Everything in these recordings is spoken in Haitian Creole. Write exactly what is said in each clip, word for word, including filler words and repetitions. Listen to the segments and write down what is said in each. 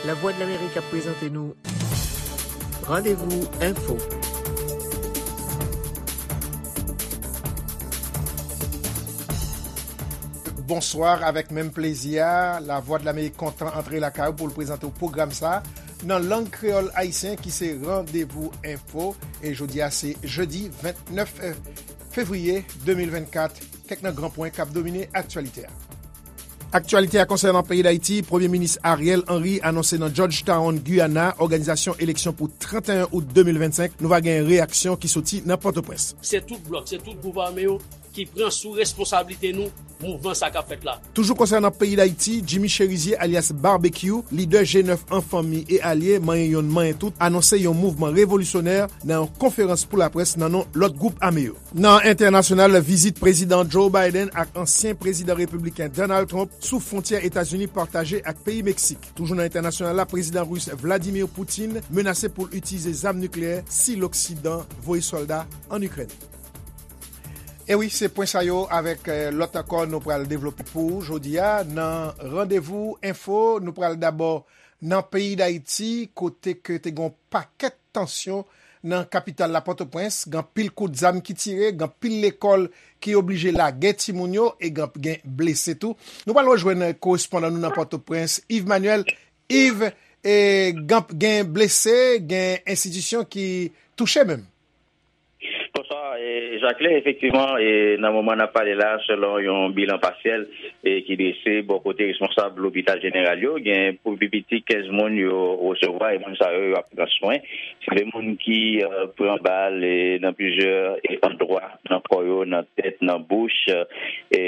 Lavwadlamerik ap prezante nou Randevou Enfo. Bonswa, avèk menm plezi a, Lavwadlamerik kontan antre lakay ou pou l prezante w pwogram sa a nan lang kreyòl ayisyen ki se Randevou Enfo. E jodi a se jedi vennèf fevriye de mil vennkat. Kèk nan gran pwen k ap domine aktyalite a. Aktyalite a konsènan peyi Dayiti, Premye Minis Ariel Henry anonse nan Georgetown, Guyana, òganizasyon eleksyon pou trannteyen out de mil vennsenk. Nou va gen reyaksyon ki soti nan Pòtoprens. Se tout blòk, se tout gwoup ame yo ki pran sou responsablite nou mouvman sa k ap fèt la. Toujou konsènan peyi Dayiti, Jimmy Chérizier alyas Barbecue, lidè G nèf An Fanmi e Alye, manyen yonn manyen tout, anonse yon mouvman revolisyonè nan yon konferans pou laprès nan non lòt gwoup ame yo. Nan entènasyonal, vizit Prezidan Joe Biden ak ansyen prezidan repibliken Donald Trump sou fwontyè Etazini pataje ak peyi Meksik. Toujou nan entènasyonal la, Prezidan ris Vladimir Putin menase pou l itilize zam nikleyè si Loksidan voye sòlda ann Ikrèn. E wi, se pwen sa yo avèk, eh, lòt ankò nou pral devlope pou ou jodi a nan Randevou Enfo. Nou pral dabò nan peyi Dayiti, kote ke te gen yon pakèt tansyon nan kapital la, Pòtoprens. Gen anpil kout zam ki tire, gen anpil lekòl ki oblije lage timoun yo, e gen, gen blese tou. Nou pral rejwenn korespondan nou nan Pòtoprens, Yves Manuel. Yves, e, gen, gen blese, gen enstitisyon ki touche menm. Bonswa, e, Jacquelin, efektivman, e, nan moman n ap pale la, selon yon bilan pasyèl, e, ki drese bò kote responsab lopital jeneral yo, gen pou pi piti kenz moun yo resevwa, e moun sa yo, yo ap pran swen. Se de moun ki, e, pran bal, e, nan plizyè, e, andwa, nan kò yo, nan tèt, nan bouch, e,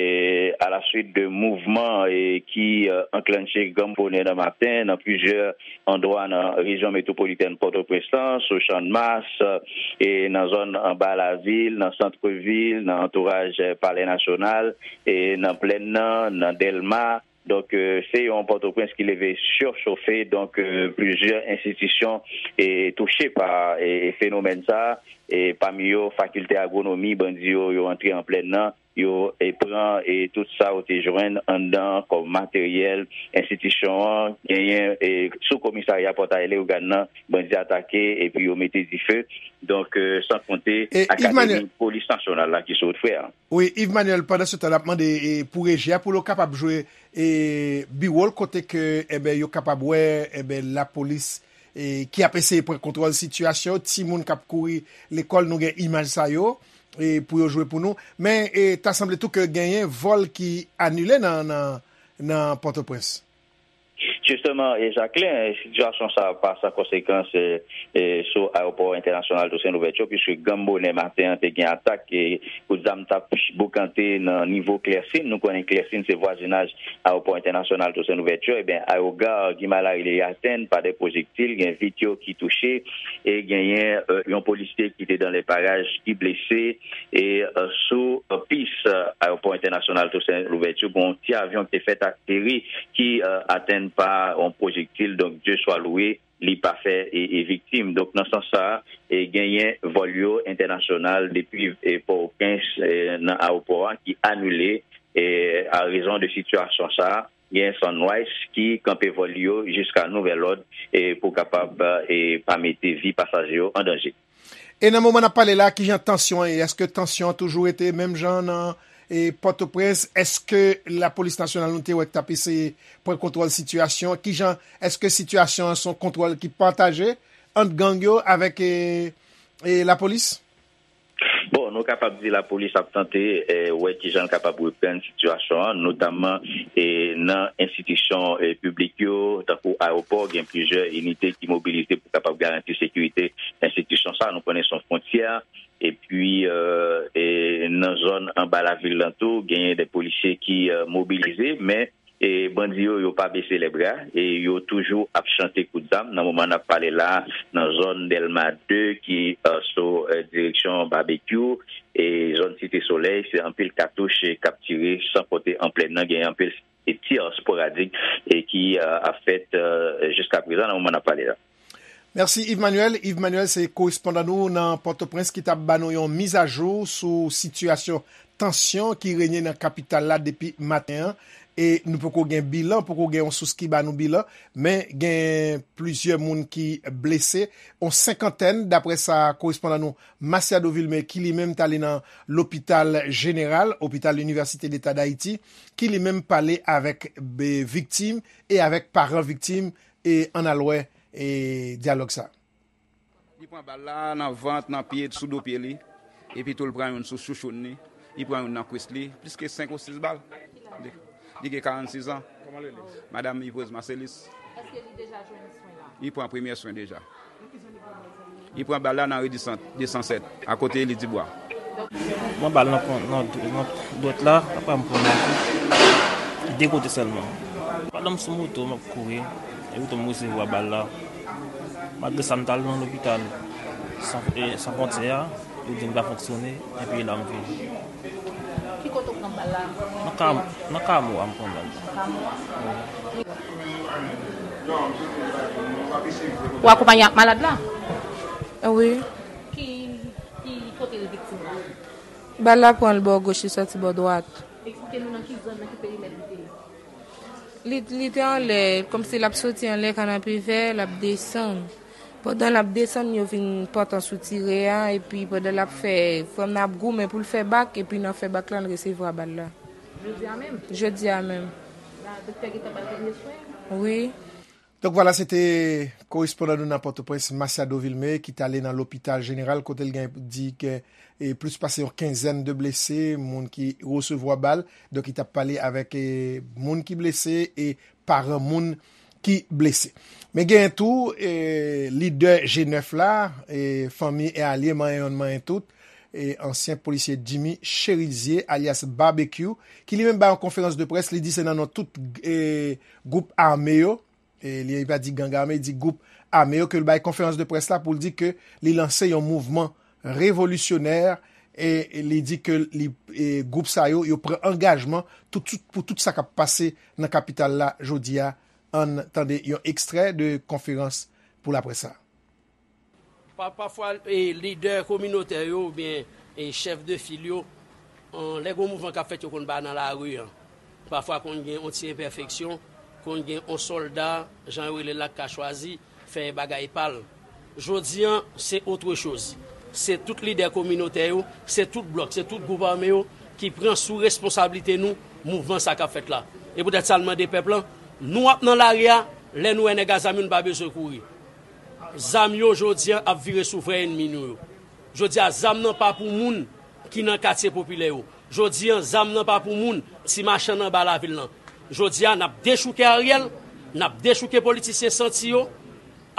alaswit de mouvman, e, ki, e, anklanche gran bonè nan maten, nan plizyè andwa nan rejyon metwopolitèn Pòtoprens lan, sou Channmas, e nan zòn anba lavil, nan sant vil, nan antouraj Palè Nasyonal, e nan Plèn nan, nan Dèlma. Donk, e, se yon Pòtoprens ki leve sichofe. Donk, e, plizyè enstitisyon, e, touche pa, e, fenomèn sa, e pami yo Fakilte Agwonomi, bandi yo, yo antre an Plèn nan, yo, e, pran, e, tout sa yo te jwenn anndan kòm materyèl enstitisyon an. Genyen, e, sou komisarya Pòtay Leyogàn nan, bandi atake epi yo mete dife. Donk, e, san konte, e, Akademi Polis Nasyonal la ki sou wout frè a. Wi, Yves Manuel, pandan se tan, n ap mande, e, pou reji a, pou yo kapab jwe, e, biwo l, kote ke, enben, yo kapab wè, enben, lapolis, e, ki ap eseye pran kontwòl sitiyasyon, timoun k ap kouri lekòl, nou gen imaj sa yo, e, pou yo jwe pou nou. Men, e, ta sanble tou ke genyen vòl ki anile nan, nan, nan Pòtoprens. Jisteman, e, Jacquelin, e, sitiyasyon sa a pa san konsekans, e, e, sou ayewopò entènasyonal Toussaint Louverture, piske gran bonè maten an te gen atak, e, kout zam t ap boukante nan nivo Klèsin. Nou konnen Klèsin se vwazinaj ayewopò entènasyonal Toussaint Louverture. Ebyen, ayoga Guy Malary li atèn pa de pwojektil, gen vit yo ki touche, e genyen, e, yon polisye ki te dan le paraj ki blese, e, e, sou, e, pis, e, ayewopò entènasyonal Toussaint Louverture, gen yon ti avyon ki te fèt ateri, ki, e, atèn pa yon pwojektil. Donk, Dye swa lwe, li pa fè, e, e, viktim. Donk, nan sans sa a, e, genyen vòl yo entènasyonal depi, e, Pòtoprens, e, nan ayewopò a ki anile, e, a rezon de sitiyasyon sa a. Genyen Sunrise ki kanpe vòl yo jiska nouvèl òd, e, pou kapab, e, pa mete vi pasaje yo an danje. E nan moman n ap pale la, kijan tansyon an ye? Èske tansyon an toujou rete menm jan nan, e, Pòtoprens? Èske lapolis nasyonal nou te wè k t ap eseye pran kontwòl sitiyasyon? Kijan, èske sitiyasyon an se yon kontwòl ki pataje ant gang yo avèk, e, e, lapolis? Bon, nou kapab di lapolis ap tante, e, wè kijan l kapab reprann sitiyasyon an, notamman, e, nan enstitisyon, e, piblik yo, tankou ayewopò, gen plizyè inite ki mobilize pou kapab garanti sekirite enstitisyon sa. Nou konnen se yon fwontyè, epi, e, e, nan zòn anba lavil lan tou, genyen de polisye ki, e, mobilize, men, e, bandi yo, yo pa bese lè bra, e yo toujou ap chante kout zam. Nan moman n ap pale la, nan zòn Dèlma de ki, e, sou, e, direksyon Babekyou, e zòn Site Solèy, se anpil katouch, e, k ap tire, san konte an Plèn nan, gen anpil, e, tir sporadik, e ki, e, ap fèt, e, jiska prezan, nan moman n ap pale la. Mèsi, Yves Manuel. Yves Manuel, se korespondan nou nan Pòtoprens ki t ap ba nou yon mizajou sou sitiyasyon tansyon ki renye nan kapital la depi maten an. E nou poko gen bilan, poko gen yon sous ki ba nou bilan, men gen plizyè moun ki blese, yon senkantèn, daprè sa korespondan nou Masiado Vilmé, ki li menm t ale nan lopital jeneral, opital Université d'État d'Haïti, ki li menm pale avèk, e, viktim e avèk paran viktim, e ann al wè, e dyalòg sa. Li pran bal la nan vant, nan pye, sou do pye li. Epi tou, li pran youn sou chouchoun li. Li pran youn nan kwis li. Plis ke senk ou sis bal. Li, li gen karannsis an. Kòman li rele? Madanm Yves Marcelis. Èske li deja jwenn swen la? Li pran premye swen deja. Nan ki zòn li pran bal sa? Li pran bal la nan ri di san, de san sèt, akote Eli Dibwa. Mwen bal nan, nan, nan dwèt la, apre m pran nan de kote sèlman. Pandan m sou moto, m ap kouri, epi tou m resevwa bal la. Malgre sa, m t al nan lopital San, e, San Fwontyè a, yo di m pa fonksyone, epi la m vini. Ki kote w pran bal la? Nan Kam-, nan Kamo a m pran bal la. Nan Kamo a? Wi. Ou akonpaye ak malad la? Wi. Ki, ki kote l viktim la? Bal la pran l bò goch, li sòti bò dwat. Eksplike nou nan ki zòn, nan ki perimèt li te ye. Li, li te anlè, kòmsi l ap soti anlè Kanapevè, l ap desann. Pandan l ap desann, yo vin pòtan sou tire a, epi pandan l ap fè, frè m nan ap goumen pou l fè bak, epi nan fè bak la, l resevwa bal la. Jodi a menm? Jodi a menm. La, doktè gentan ba l premye swen? Wi. Donk, vwala, se te korespondan nou nan Pòtoprens, Masiado Vilmé, ki t ale nan lopital jeneral, kote l gen di ke, e, plis pase yon kenzèn de blese, moun ki resevwa bal. Donk, li t ap pale avèk, e, moun ki blese e paran moun ki blese. Men genyen tou, e, lidè G nèf la, e, fanmi e alye, manyen yonn, manyen tout, e, ansyen polisye Jimmy Chérizier, alyas Barbecue, ki li menm bay yon konferans de près, li di se nan non tout, e, gwoup ame yo, e, li pa di gang ame, li di gwoup ame yo, ke l bay konferans de près la pou l di ke li lanse yon mouvman revolisyonè, e, e li di ke li, e, gwoup sa yo, yo pran angajman tout, tout, pou tout sa k ap pase nan kapital la jodi a. Ann tande yon ekstrè de konferans pou laprès sa. Pa, pafwa, e, lidè kominotè yo oubyen, e, chèf de fil yo, an, lè gon mouvman k ap fèt, yo konn pa nan lari an. Pafwa konn gen yon ti enpèfeksyon, konn gen yon sòlda, jan yo rele l la, k ka chwazi fè bagay pa l. Jodi an, se autre chose. Se tout lidè kominotè yo, se tout blòk, se tout gwoup ame yo ki pran sou responsablite nou mouvman sa k ap fèt la. E poutèt sa, n mande pèp lan, nou ap nan lari a, lè nou wè nèg a zam yo, nou pa bezwen kouri. Zam yo, jodi an, ap vire sou vrè ènmi nou yo. Jodi a, zam nan pa pou moun ki nan katye popilè yo. Jodi an, zam nan pa pou moun, ti machann anba lavil lan. Jodi a, n ap dechouke Ariel, n ap dechouke politisyen santi yo.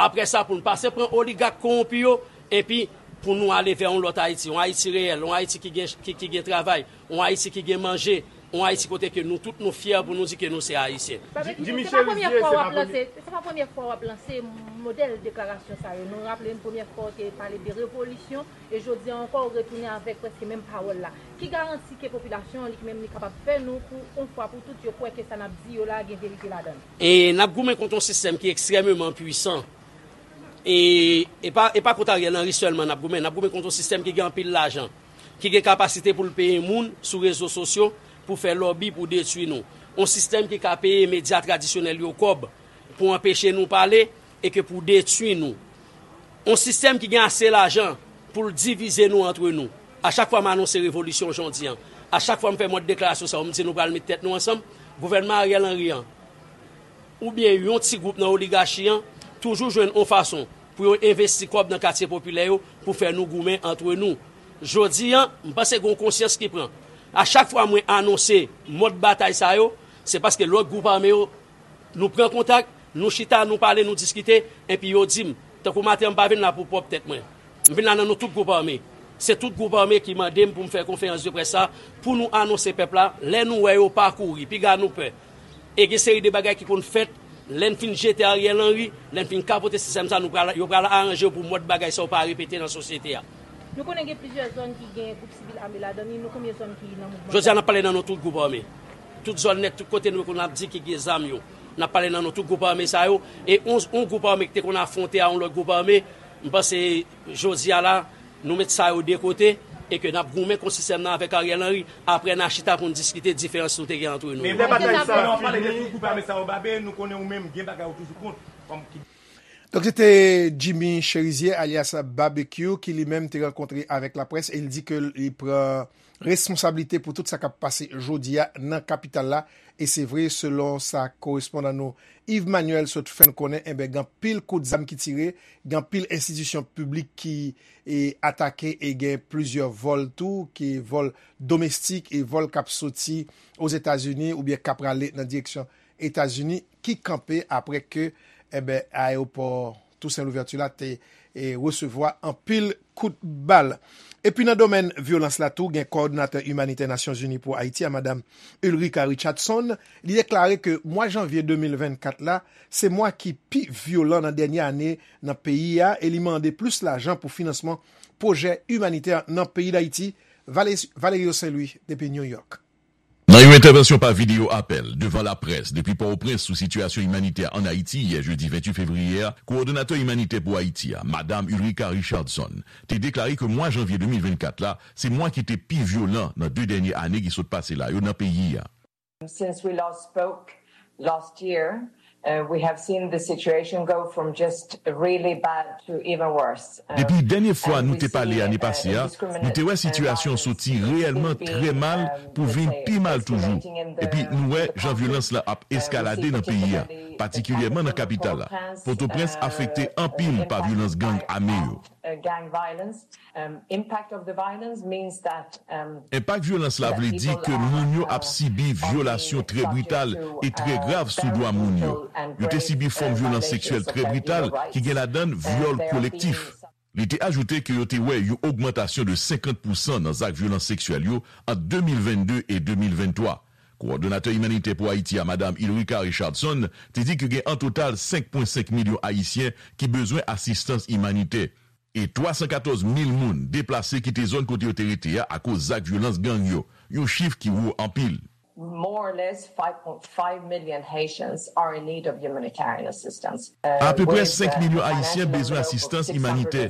Apre sa, pou n pase pran oligak kowonpi yo, epi pou nou ale vè yon lòt Ayiti, yon Ayiti reyèl, yon Ayiti ki gen, ki, ki gen travay, yon Ayiti ki gen manje, yon Ayiti kote ke nou tout nou fyè pou nou di ke nou se Ayisyen. Sa vle di, Jimmy se pa premye Chérizier, fwa w ap lanse, se pa premye fwa w ap lanse modèl deklarasyon sa yo. Nou raple n premye fwa w te pale de revolisyon, e jodi a ankò w retounen avèk prèske menm pawòl la. Ki garanti ke popilasyon an li menm li kapab fè nou pou yon fwa pou tout yo kwè ke sa n ap di yo la gen verite ladan l? E n ap goumen kont yon sistèm ki ekstrèmeman pwisan. E, e pa, e pa kont Ariel Henry sèlman n ap goumen, n ap goumen kont yon sistèm ki gen anpil lajan, ki gen kapasite pou l peye moun sou rezo sosyo pou fè lòbi pou detwi nou. Yon sistèm ki ka peye medya tradisyonèl yo kòb pou anpeche nou pale e ke pou detwi nou. Yon sistèm ki gen ase lajan pou l divize nou antre nou. A chak fwa m anonse revolisyon jodi an, a chak fwa m fè mòd deklarasyon sa yo, m di nou pral met tèt nou ansanm, gouvènman Ariel Henry an, oubyen yon ti gwoup nan oligachi an toujou jwenn yon fason pou yo envesti kòb nan katye popilè yo pou fè nou goumen antre nou. Jodi an, m panse gen yon konsyans ki pran. A chak fwa mwen anonse mòd batay sa yo, se paske lòt gwoup ame yo, nou pran kontak, nou chita, nou pale, nou diskite, epi yo di m, tankou maten an, m pa vin la pou pwòp tèt mwen. M vin la nan non tout gwoup ame. Se tout gwoup ame ki mande m pou m fè konferans de près sa, pou nou anonse pèp la, lè nou wè yo pa kouri, piga nou pè. E gen seri de bagay ki konn fèt, lè n fin jete Ariel Henry, lè n fin kapote sistèm sa, nou pral, yo pral aranje yo pou mòd bagay sa yo pa repete nan sosyete a. Nou konnen gen plizyè zòn ki gen gwoup sivil ame ladan li, nou konbyen zòn ki nan mouvman sa? Jodi a, n ap pale nan non tout gwoup ame. Tout zòn nèt, tout kote nou konn ap di ki gen zam yo. N ap pale nan non tout gwoup ame sa yo. E yon, yon gwoup ame ki te konn afwonte a yon lòt gwoup ame, m panse jodi a la, nou met sa yo de kote, E ke n ap goumen konsistèman avèk Ariel Henry, apre n a chita pou n diskite diferans nou te gen antre nou yo. Lè batay sa ap fini, nou pale de tout gwoup ame sa yo, Babe, nou konnen ou menm gen bagay ou toujou kont kòm ki. Donk, se te Jimmy Cherizier, alyas Babekyou, ki li menm te rankontre avèk laprès e l di ke li pran responsablite pou tout sa k ap pase jodi a nan kapital la. E se vre, selon sa korespondan nou Yves Manuel sot fè n konnen, enben, gen anpil kout zam ki tire, gen anpil enstitisyon piblik ki e atake e gen plizyè vòl tou, ki vòl domestik e vòl k ap soti Ozetazini oubyen k ap prale nan direksyon Etazini, ki kanpe apre ke, enben, ayewopò Toussaint Louverture la te e, resevwa anpil kout bal. Epi nan domèn vyolans la tou, gen kowòdonatè imanitè Nasyonzini pou Ayiti a, Madam Ulrika Richardson, li deklare ke mwa janvye de mil vennkat la, se mwa ki pi vyolan nan dènye ane nan peyi a e li mande plis lajan pou finansman pwojè imanitè nan peyi Dayiti. Vale-, Valerio Saint Louis, depi New York. Nan yon entèvansyon pa videyo apèl devan laprès depi Pòtoprens sou sitiyasyon imanitè ann Ayiti yè jedi venntuit fevriye a, kowòdonatè imanitè pou Ayiti a, Madam Ulrika Richardson, te deklare ke mwa janvye de mil vennkat la, se mwa ki te pi vyolan nan de dènye ane ki sot pase la yo nan peyi a. Since we last spoke last year, uh, we have seen the situation go from just really bad to even worse. Uh, Depi dènye fwa nou te pale ane pase a, nou te wè sitiyasyon soti reyèlman trè mal pou vin pi mal toujou. Epi nou wè jan vyolans la ap eskalade nan peyi a, patikilyèman nan kapital la. Pòtoprens afekte anpil pa vyolans gang ame yo. Enpak vyolans la vle di ke moun yo ap sibi vyolasyon trè brital e trè grav sou dwa moun yo. Yo te sibi fòm vyolans seksyèl trè brital ki gen ladan l vyòl kolektif. Li te ajoute ke yo te wè yon ogmantasyon de senkant pousan nan zak vyolans seksyèl yo ant de mil vennde e de mil venntwa. Kowòdonatè imanitè pou Ayiti a, Madam Ulrika Richardson, te di ke gen an total senk pwen senk milyon Ayisyen ki bezwen asistans imanitè. E twa san katòz mil moun deplase kite zòn kote yo te rete a akoz zak vyolans gang yo, yon chif ki wo anpil. More or less five point five million Haitians are in need of humanitarian assistance. Apeprè senk milyon Ayisyen bezwen asistans imanitè.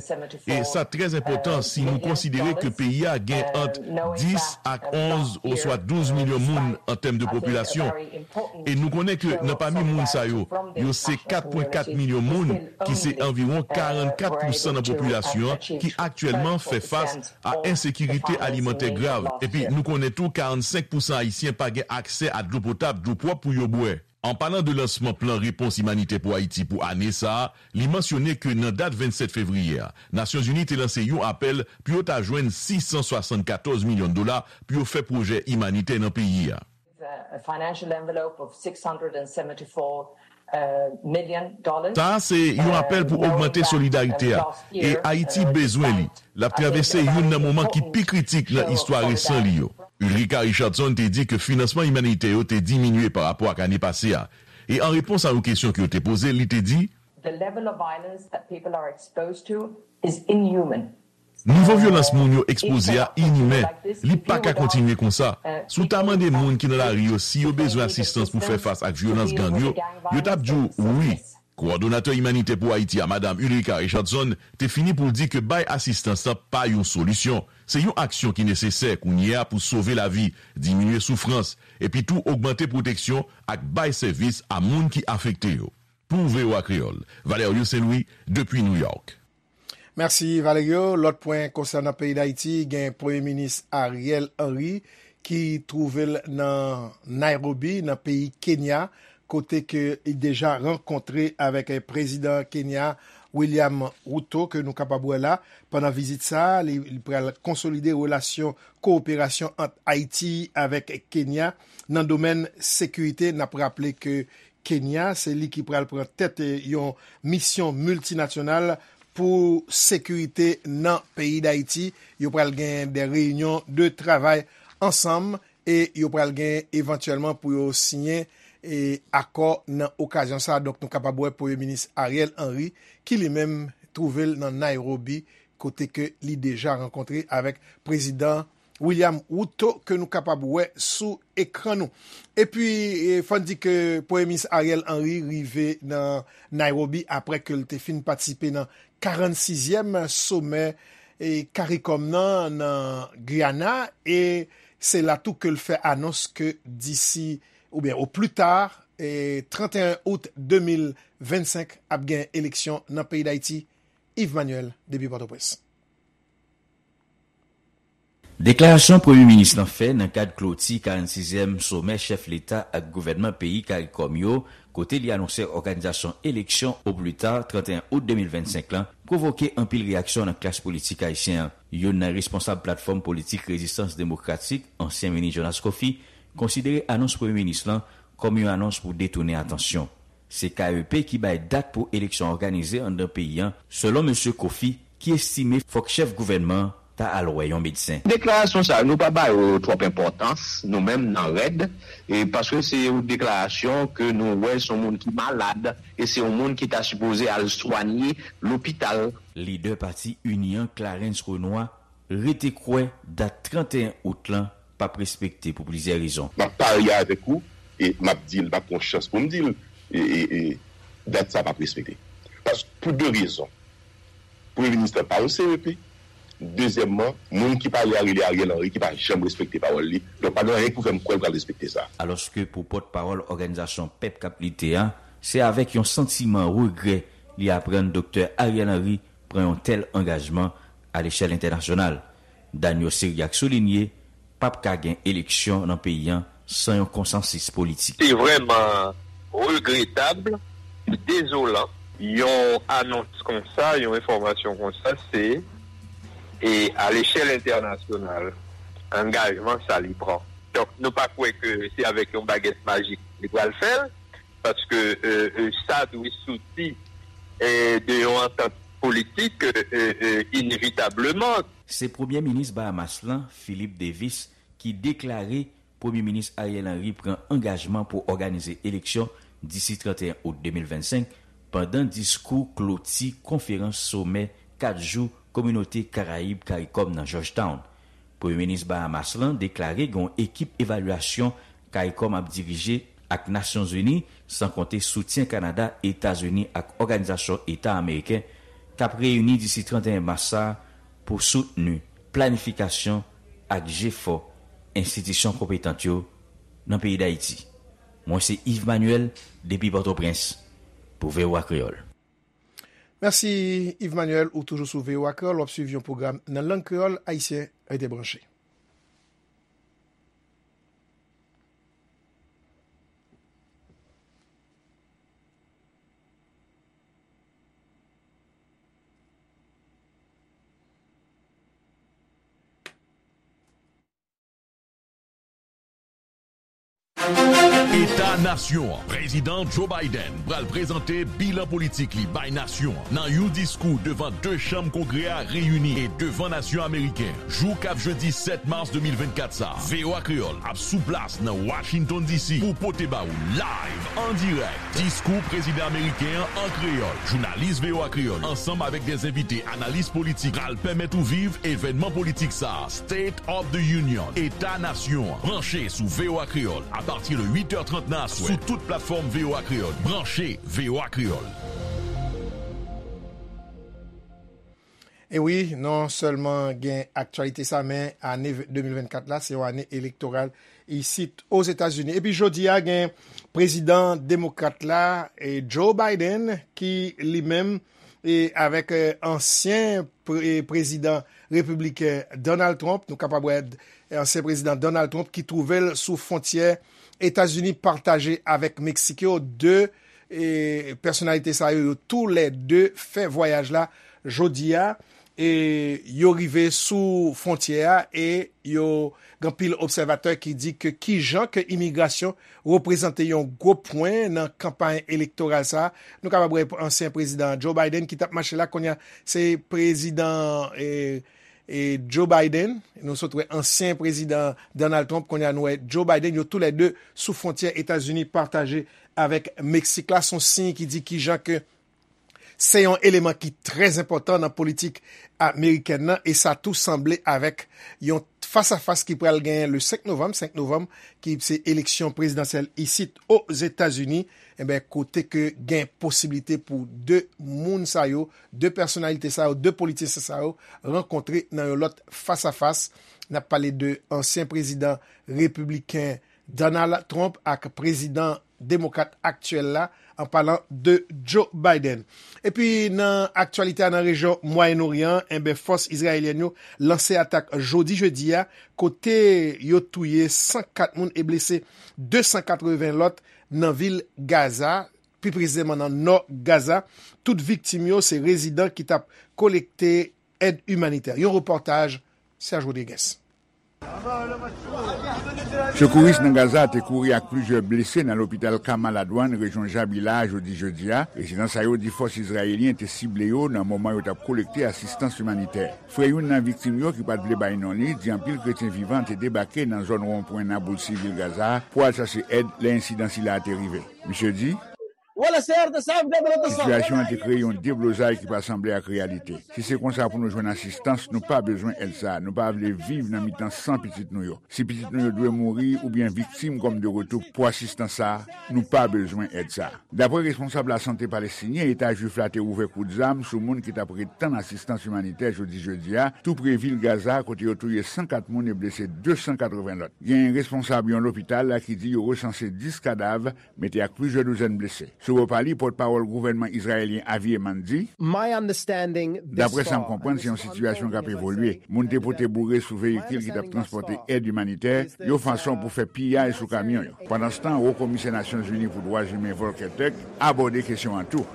E sa trè enpòtan si nou konsidere ke peyi a gen ant dis ak onz oswa douz milyon moun an tèm de popilasyon. E nou konnen ke nan pami moun sa yo, yo se kat pwen kat milyon moun ki se anviwon karannkat pousan nan popilasyon an ki aktyèlman fè fas a ensekirite alimantè grav. Epi nou konnen tou karannsenk pousan Ayisyen pa gen aksè a dlo potab, dlo pwòp pou yo bwè. An palan de lansman plan repons imanitè pou Ayiti pou ane sa a, li mansyone ke nan dat vennsèt fevriye a, Nasyonzini te lanse yon apèl pou yo ta jwenn sis san swasannkatòz milyon dola pou yo fè pwojè imanitè nan peyi a. A financial envelope of six hundred and seventy-four million dollars. Sa a se yon apèl pou ogmante solidarite a, e Ayiti bezwen li. L ap travèse youn nan moman ki pi kritik nan istwa resan li yo. Ulrika Richardson te di ke finansman imanitè yo te diminye pa rapò ak ane pase a. E an repons a yon kesyon ke yo te poze l, li te di, The level of violence that people are exposed to is inhuman. Nivo vyolans moun yo ekspoze a inimen. Li pa ka kontinye konsa. Si w ta mande moun ki nan lari yo si yo bezwen asistans pou fè fas ak vyolans gang yo, yo t ap di w wi. Kowòdonatè imanitè pou Ayiti a, Madam Ulrika Richardson, te fini pou l di ke bay asistans lan pa yon solisyon. Se yon aksyon ki nesesè kounye a pou sove lavi, diminye soufrans, epi tou ogmante pwoteksyon ak bay sèvis a moun ki afekte yo. Pou V O A Kreyòl, Valerio Saint Louis, depi New York. Mèsi, Valerio. Lòt pwen konsènan peyi Dayiti, gen Premye Minis Ariel Henry ki twouve l nan Nairobi, nan peyi Kenya, kote ke li deja rankontre avèk, eh, prezidan Kenya, William Ruto, ke nou kapab wè la. Pandan vizit sa a, li, li pral konsolide relasyon kowoperasyon ant Ayiti avèk Kenya nan domèn sekirite. N ap raple ke Kenya, se li ki pral pran tèt, eh, yon misyon miltinasyonal pou sekirite nan peyi Dayiti. Yo pral gen de reyinyon de travay ansanm e yo pral gen evantyèlman pou yo siyen, eh, akò nan okazyon sa a. Donk, nou kapab wè Premye Minis Ariel Henry, ki li menm twouve l nan Nairobi, kote ke li deja rankontre avèk prezidan William Ruto ke nou kapab wè sou ekran nou. Epi, eh, fò n di ke Premye Minis Ariel Henry rive nan Nairobi apre ke l te fin patisipe nan karannsizyèm somè, e, CARICOM nan, nan Guyana, e se la tou ke l fè anons ke disi, oubyen o pli ta, e, trannteyen out de mil vennsenk ap gen eleksyon nan peyi Dayiti. Yves Manuel, depi Pòtoprens. Deklarasyon Premye Minis lan fè nan kad kloti karannsizyèm somè chèf leta ak gouvènman peyi CARICOM yo, kote li anonse òganizasyon eleksyon o pli ta trannteyen out de mil vennsenk lan, pwovoke anpil reyaksyon nan klas politik ayisyen an. Youn nan responsab platfòm politik Rezistans Demokratik, ansyen minis Jonas Coffy, konsidere anons Premye Minis lan kòm yon anons pou detounen atansyon. Se K E P ki bay dat pou eleksyon òganize anndan peyi an, selon mesye Coffy, ki estime fòk chèf gouvènman an ta al wè yon medsen. Deklarasyon sa yo, nou pa ba yo twòp enpòtans, nou menm nan rèd, e paske se yon deklarasyon ke nou wè se yon moun ki malad, e se yon moun ki ta sipoze al swanye lopital. Lidè pati Ini an, Clarens Renois, rete kwè dat trannteyen out lan p ap respekte pou plizyè rezon. M ap parye avèk ou, e m ap di l, m ap pran chans pou m di l, e, e, e, dat sa p ap respekte. Pas, pou de rezon. Premye minis lan pa yon C E P. Dezyèmman, moun ki pale a rele Ariel Henry ki pa janm respekte pawòl li. Donk, pa gen anyen ki pou fè m kwè l pral respekte sa. Alòske pou pòtpawòl òganizasyon Pèp k ap lite a, se avèk yon santiman regrè li aprann Doktè Ariel Henry pran yon tèl angajman alechèl entènasyonal. Daniel Ciriaque soulinye p ap ka gen eleksyon nan peyi an san yon konsansis politik. Se vrèman regretab, dezolan. Yon anons konsa, yon enfòmasyon konsa, se, e, alechèl entènasyonal, angajman sa li pran. Donk, nou pa kwè ke se avèk yon bagèt majik li pral fè l, paske, e, e, sa dwe soti, e, de yon antant politik, e, e, e, inevitableman. Se Premye Minis Bahamas lan, Philip Davis, ki deklare Premye Minis Ariel Henry pran angajman pou òganize eleksyon disi trannteyen out de mil vennsenk, pandan diskou kloti konferans somè kat jou Kominote Karayib CARICOM nan Georgetown. Premye Minis Bahamas lan deklare gen yon ekip evalyasyon CARICOM ap dirije ak Nasyonzini, san konte soutyen Kanada, Etazini ak Òganizasyon Eta Ameriken, k ap reyini disi trannteyen mas sa a pou soutni planifikasyon ak jefò enstitisyon konpetant yo nan peyi Dayiti. Mwen se Yves Manuel, depi Pòtoprens, pou V O A Kreyòl. Mèsi, Yves Manuel, ou toujou sou V O A Kreyòl, w ap swiv yon pwogram nan lang kreyòl ayisyen. Rete branche. Eta Nasyon an. Prezidan Joe Biden pral prezante bilan politik li bay nasyon an nan yon diskou devan de chanm Kongrè a reyini e devan nasyon ameriken, jou k ap jedi sèt mas de mil vennkat sa a. V O A Kreyòl ap sou plas nan Washington D C pou pote ba ou live, an dirèk, diskou prezidan ameriken an an kreyòl. Jounalis V O A Kreyòl, ansanm avèk de envite analis politik, pral pèmèt ou viv evènman politik sa a, State of the Union, Eta Nasyon an. Branche sou V O A Kreyòl apati de uit è trant nan aswè sou tout platfòm V O A Kreyòl. Branche V O A Kreyòl. E wi, non sèlman gen aktyalite sa, men ane de mil vennkat la, se yon ane elektoral isit Ozetazini. Epi jodi a, gen prezidan demokrat la, e Joe Biden, ki li menm, e avèk, e, ansyen pre-, e, prezidan repibliken Donald Trump, nou kapab wè, e, ansyen prezidan Donald Trump ki twouve l sou fwontyè Etazini pataje avèk Meksik yo, de, e, pèsonalite sa yo, yo toulède fè vwayaj la jodi a, e yo rive sou fwontyè a, e yo gen anpil obsèvatè ki di ke kijan ke imigrasyon reprezante yon gwo pwen nan kanpay elektoral sa a. Nou kapab wè ansyen prezidan Joe Biden ki t ap mache la, kounye a se prezidan, e, e Joe Biden, nou sot wè ansyen prezidan Donald Trump, kounye a nou wè Joe Biden, yo toulède sou fwontyè Etazini pataje avèk Meksik la. Se yon siy ki di kijan ke se yon eleman ki trè enpòtan nan politik amerikèn nan, e sa tou sanble avèk yon t-, fas a fas ki pral genyen le senk novanm, senk novanm, ki se eleksyon prezidansyèl isit Ozetazini, enben, kote ke gen posiblite pou de moun sa yo, de pèsonalite sa yo, de politisyen sa yo rankontre nan yon lòt fas a fas. N ap pale de ansyen prezidan repibliken Donald Trump ak prezidan demokrat aktyèl la, an palan de Joe Biden. Epi nan aktyalite a nan rejyon Mwayen Oryan, enben, fòs izrayelyèn yo lanse atak jodi jedi a, kote yo touye san kat moun e blese de san katreven lòt nan vil Gaza, pi presizeman nan nò Gaza. Tout viktim yo se rezidan ki t ap kolekte èd imanitè. Yon repòtaj Serge Rodriguez. Sekouris nan Gaza te kouri ak plizyè blese nan lopital Kamal Adwan, rejyon Jabila a, jodi jedi a. Rezidan sa yo di fòs izrayelyen te sible yo nan moman yo t ap kolekte asistans imanitè. Frè youn nan viktim yo, ki pa t vle bay non li, di anpil kretyen vivan te debake nan zòn wonpwen Naboulsi, vil Gaza a, pou al chache èd lè ensidan sila a te rive. Misye di, Sitiyasyon an te kreye yon deblozay ki pa sanble ak reyalite. Si se konsa pou nou jwenn asistans, nou pa bezwen èd sa a. Nou pa vle viv nan mitan san pitit nou yo. Si pitit nou yo dwe mouri oubyen viktim kòm de retou pou asistans sa a, nou pa bezwen èd sa a. Dapre responsab lasante palestinyen, Eta Jwif la te ouvè kout zam sou moun ki t ap ret tann asistans imanitè jodi jedi a, tou pre vil Gaza, kote yo touye san kat moun e blese de san katreven lòt. Gen responsab yon lopital ki di yo resanse dis kadav, mete ak plizyè douzèn blese. Sou bò pa li, pòtpawòl gouvènman izrayelyen Avi Eman di, Dapre sa m konprann, se yon sitiyasyon k ap evolye. Moun te pote boure sou veyikil ki t ap transpòte èd imanitè, yon fason pou fè piyay sou kamyon yo. Pandanstan, Wo Komisè Nasyonzini pou Dwa Imen Volker Turk abòde kesyon an tou.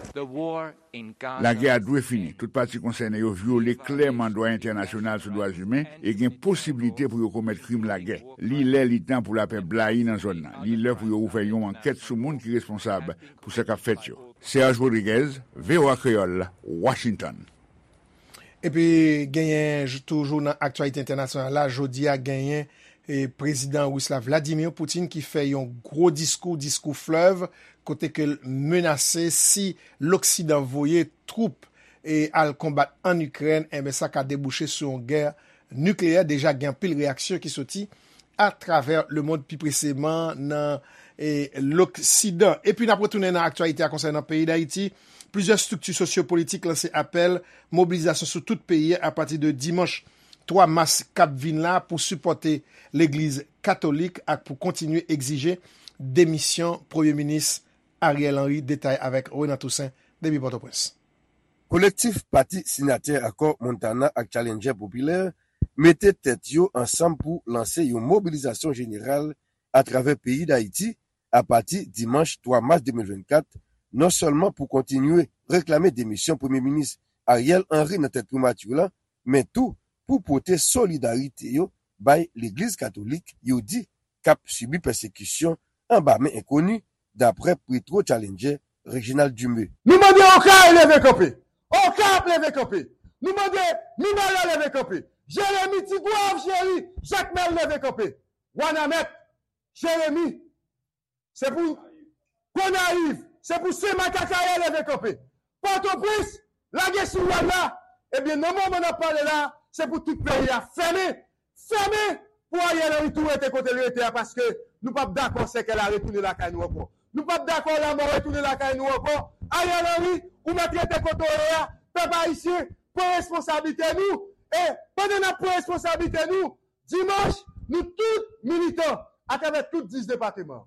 Lagè a dwe fini. Tout pati konsène yo vyole klèman dwa entènasyonal sou dwa imen e gen posiblite pou yo komèt krim lagè. Li lè, li tan pou lapè blayi nan zòn nan. Li lè pou yo ouvè yon ankèt sou moun ki responsab pou sa k ap fèt yo. Serge Rodriguez, V O A Kreyòl, Washington. Epi genyen, toujou nan aktyalite entènasyonal la, jodi a genyen e prezidan ris la Vladimir Putin ki fè yon gwo diskou, diskou flèv, kote ke l menase si Loksidan voye twoup e al konbat ann Ikrèn, enben sa ka debouche sou yon gè nikleyè. Deja gen anpil reyaksyon ki soti atravè lemond, pi preseman nan e, Loksidan. Epi n ap retounen nan aktyalite a konsènan peyi Dayiti. Plizyè estrikti sosyopolitik lanse apèl mobilizasyon sou tout peyi a apati de dimanch twa mas k ap vin la pou sipòte Legliz Katolik ak pou kontinye egzije demisyon Premye Minis Ariel Henry. Detay avèk Renan Toussaint depi Pòtoprens. Kolektif pati siyatè akò Montana ak Challenger Popilè mete tèt yo ansanm pou lanse yon mobilizasyon jeneral atravè peyi Dayiti apati dimanch twa mas de mil vennkat, non sèlman pou kontinye reklame demisyon Premye Minis Ariel Henry nan tèt primati lan, men tou pou pote solidarite yo bay Legliz Katolik yo di k ap sibi pèsekisyon anba men enkoni, daprè Petro Challenger Reginald Dumé. Nou mande Okay leve kanpe. Okay ap leve kanpe. Nou mande Mibalè leve kanpe. Jeremi, Tigwav, Jeri, Jakmèl leve kanpe. Wanament, Jeremi, se pou Gonayiv, se pou Senmak, Akayè leve kanpe. Pòtoprens, lage sou wòl la. Ebyen, nan moman n ap pale la, se pou tout peyi a fèmen. Fèmen pou Ariel Henry tou rete kote l rete a, paske nou p ap dakò sèkèy la retounen lakay nou ankò. Nou p ap dakò lanmò retounen lakay nou ankò. Ariel Henry, ou mèt rete kote w ye a. Pèp ayisyen, pran responsablite nou. E pandan n ap pran responsablite nou, dimanch, nou tout militan, atravè tout dis depatman,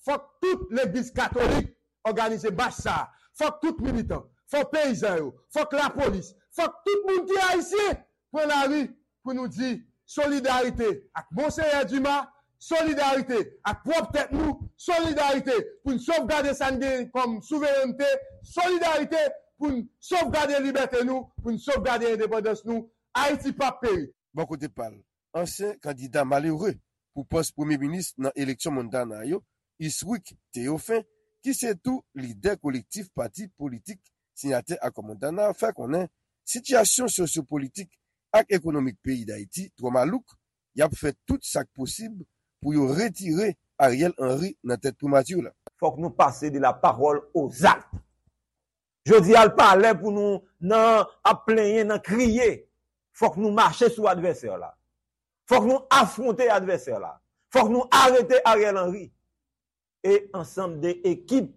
fòk tout legliz katolik òganize mach sa a. Fòk tout militan, fòk peyizan yo, fòk lapolis, fòk tout moun ki ayisyen pran lari pou nou di solidarite ak Monseyè Dumas, solidarite ak pwòp tèt nou, solidarite pou n sovgade sa n genyen kòm souverènte, solidarite pou n sovgade libète nou, pou n sovgade endepandans nou. Ayiti p ap peri. Bò kote pa l, ansyen kandida malere pou pòs premye minis nan eleksyon Montana yo, Iswick Théophin, ki se tou lidè kolektif pati politik siyatè akò Montana, fè konnen sitiyasyon sosyopolitik ak ekonomik peyi Dayiti twò malouk, y ap fè tout sa k posib pou yo retire Ariel Henry nan tèt primati la. Fòk nou pase de la parole aux actes. Jodi a, l pa lè pou nou nan ap plenyen, nan kriye. Fòk nou mache sou advèsè la. Fòk nou afwonte advèsè la. Fòk nou arete Ariel Henry e ansanm de ekip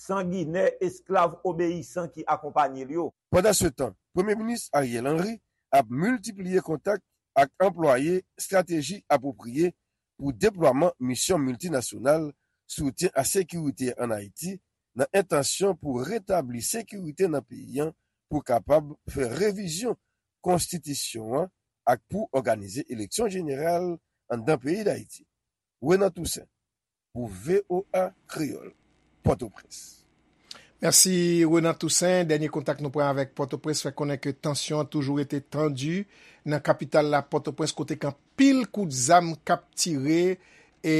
sanginè, esklav, obeyisan ki akonpanye l yo. Pandansetan, Premye Minis Ariel Henry ap miltipliye kontak ak anplwaye estrateji apwopriye pou deplwaman misyon miltinasyonal soutyen a sekirite ann Ayiti, nan entansyon pou retabli sekirite nan peyi a, pou kapab fè revizyon konstitisyon an ak pou òganize eleksyon jeneral anndan peyi Dayiti. Renan Toussaint, pou V O A Kreyòl, Pòtoprens. Mèsi, Renan Toussaint. Dènye kontak nou pran avèk Pòtoprens fè konnen ke tansyon an toujou rete tandi nan kapital la, Pòtoprens, kote gen anpil kout zam k ap tire, e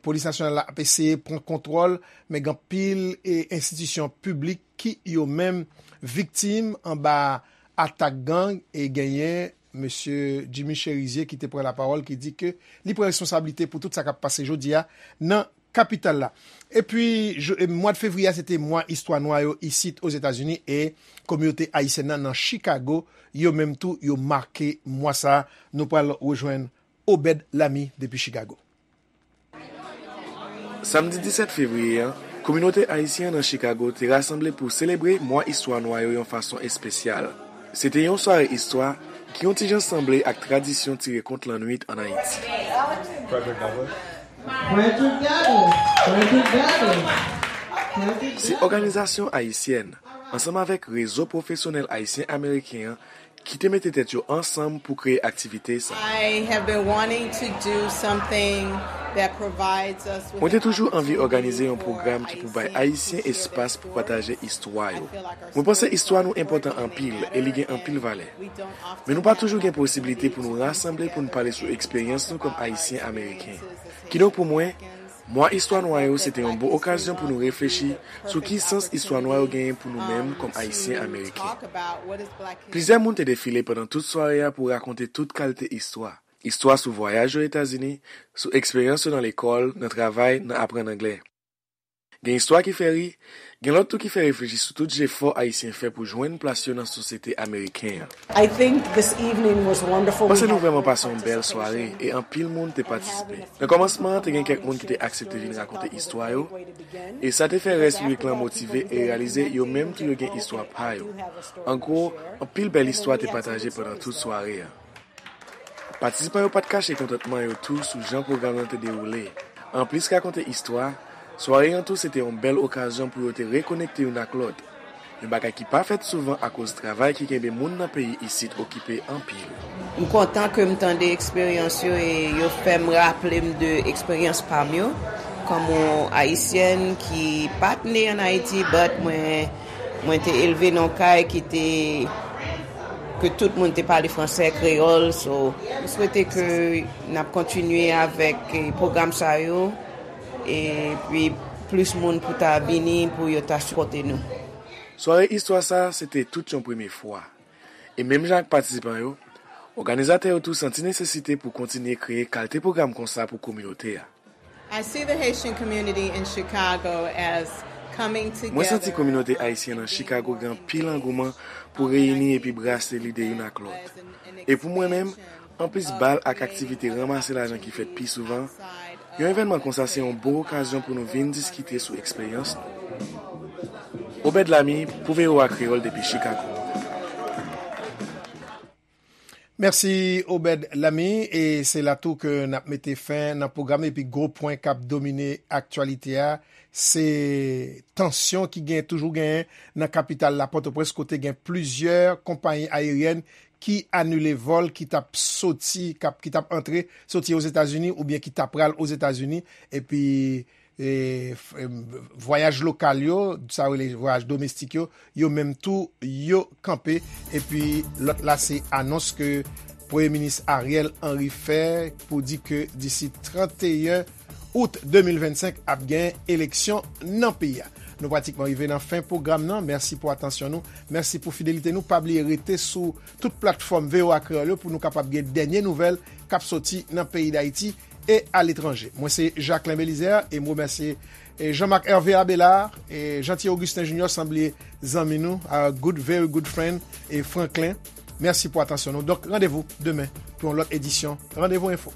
polis nasyonal la ap eseye pran kontwòl, men gen anpil, e, enstitisyon piblik ki yo menm viktim anba atak gang, e genyen Mesye Jimmy Chérizier ki te pran lapawòl, ki di ke li pran responsablite pou tout sa k ap pase jodi a nan kapital la. Epi, je- e, mwa de fevriye a, se te mwa istwa nwa yo isit Ozetazini, e kominote ayisyèn nan nan Chicago, yo menm tou, yo make mwa sa a. Nou pral rejwenn Obed Lamy depi Chicago. Samdi disèt fevriye a, kominote ayisyen an nan Chicago te rasanble pou selebre mwa istwa nwa yo yon fason espesyal. Se te yon sware istwa ki yon ti jan sanble ak tradisyon tire kont lannwit ann Ayiti. Frederick Douglass. Frederick Douglass. Frederick Douglass. Se òganizasyon ayisyèn, ansanm avèk rezo pwofesyonèl ayisyen-ameriken an, ki te mete tèt yo ansanm pou kreye aktivite sa. I have been wanting to do something that provides us with Mwen te toujou anvi òganize yon pwogram ki pou bay Ayisyen espas pou pataje istwa yo. Mwen panse istwa nou enpòtan anpil e li gen anpil valè. Men nou pa toujou gen posiblite pou nou rasanble pou n pale sou eksperyans nou kòm Ayisyen Ameriken. Kidonk pou mwen, Mwa istwa nwa yo se te yon bon okazyon pou nou reflechi sou ki sans istwa nwa yo genyen pou nou menm kòm Ayisyen Ameriken. Plizyè moun te defile pandan tout sware a pou rakonte tout kalite istwa. Istwa sou vwayaj yo Etazini, sou eksperyans yo nan lekòl, nan travay, nan aprann anglè. Gen istwa ki fè ri, gen lòt tou ki fè reflechi sou tout jefò Ayisyen fè pou jwenn plas yo nan sosyete ameriken an. I think this evening was wonderful. Mwen panse nou vrèman pase yon bèl sware e anpil moun te patisipe. Nan kòmansman an, te gen kèk moun ki te aksepte vin rakonte istwa yo, e sa te fè rès piblik lan motive e reyalize yo menm tou yo gen istwa pa yo. An gwo, anpil bèl istwa te pataje pandan tout sware a. Patisipan yo pa t kache kontantman yo tou sou jan pwogram nan te dewoule. Anplis rakonte istwa, sware an tou se te yon bèl okazyon pou yo te rekonekte youn ak lòt. Yon bagay ki pa fèt souvan akoz travay ki kenbe moun nan peyi isit okipe anpil. M kontan ke m tande eksperyans yo e yo fè m raple m de eksperyans pa m yo. Kòm yon Ayisyèn ki pa t ne ann Ayiti, but mwen, mwen te elve nan yon kay ki te ke tout moun te pale fransè, kreyòl. So, m swete ke n ap kontinye avèk, eh, pwogram sa yo, epi plis moun pou ta vini, pou yo ta sipòte nou. Sware istwa sa a, se te tout yon premye fwa. E menm jan ak patisipan yo, òganizatè yo tou santi nesesite pou kontinye kreye kalite pwogram konsa pou kominote a. I see the Haitian community in Chicago as coming together. Mwen santi kominote ayisyen nan Chicago gen anpil angouman pou reyini epi brase lide youn ak lòt. E pou mwen menm, anplis bal ak aktivite ranmase lajan ki fèt pi souvan, yon evènman konsa se yon bon okazyon pou nou vin diskite sou eksperyans nou. Obed Lamy pou V O A Kreyòl depi Chicago. Mèsi, Obed Lamy. E se la tou ke n ap mete fen nan pwogram epi gwo pwen k ap domine aktyalite a, se tansyon ki gen, toujou genyen nan kapital la, Pòtoprens, kote gen plizyè konpayi ayeryèn ki anile vòl ki t ap soti, k ap, ki t ap antre, soti Ozetazini oubyen ki t ap pral Ozetazini, epi e, f- em, vwayaj lokal yo, sa yo rele vwayaj domestik yo, yo menm tou, yo kanpe. Epi lòt la, se anons ke Premye Minis Ariel Henry fè pou di ke disi trannteyen out de mil vennsenk ap gen eleksyon nan peyi a. Nou pratikman rive nan fen pwogram nan. Mèsi pou atansyon nou. Mèsi pou fidelite nou. Pa bliye rete sou tout platfòm V O A Kreyòl yo pou nou kapab gen dènye nouvèl k ap soti nan peyi Dayiti e aletranje. Mwen se Jacquelin Belizaire e m remèsye e Jean-Marc Hervé Abelard, e Jeanty Augustin Junior, san bliye zanmi nou, our good, very good friend, e Franklin. Mèsi pou atansyon nou. Donk, randevou demen pou yon lòt edisyon Randevou Enfo.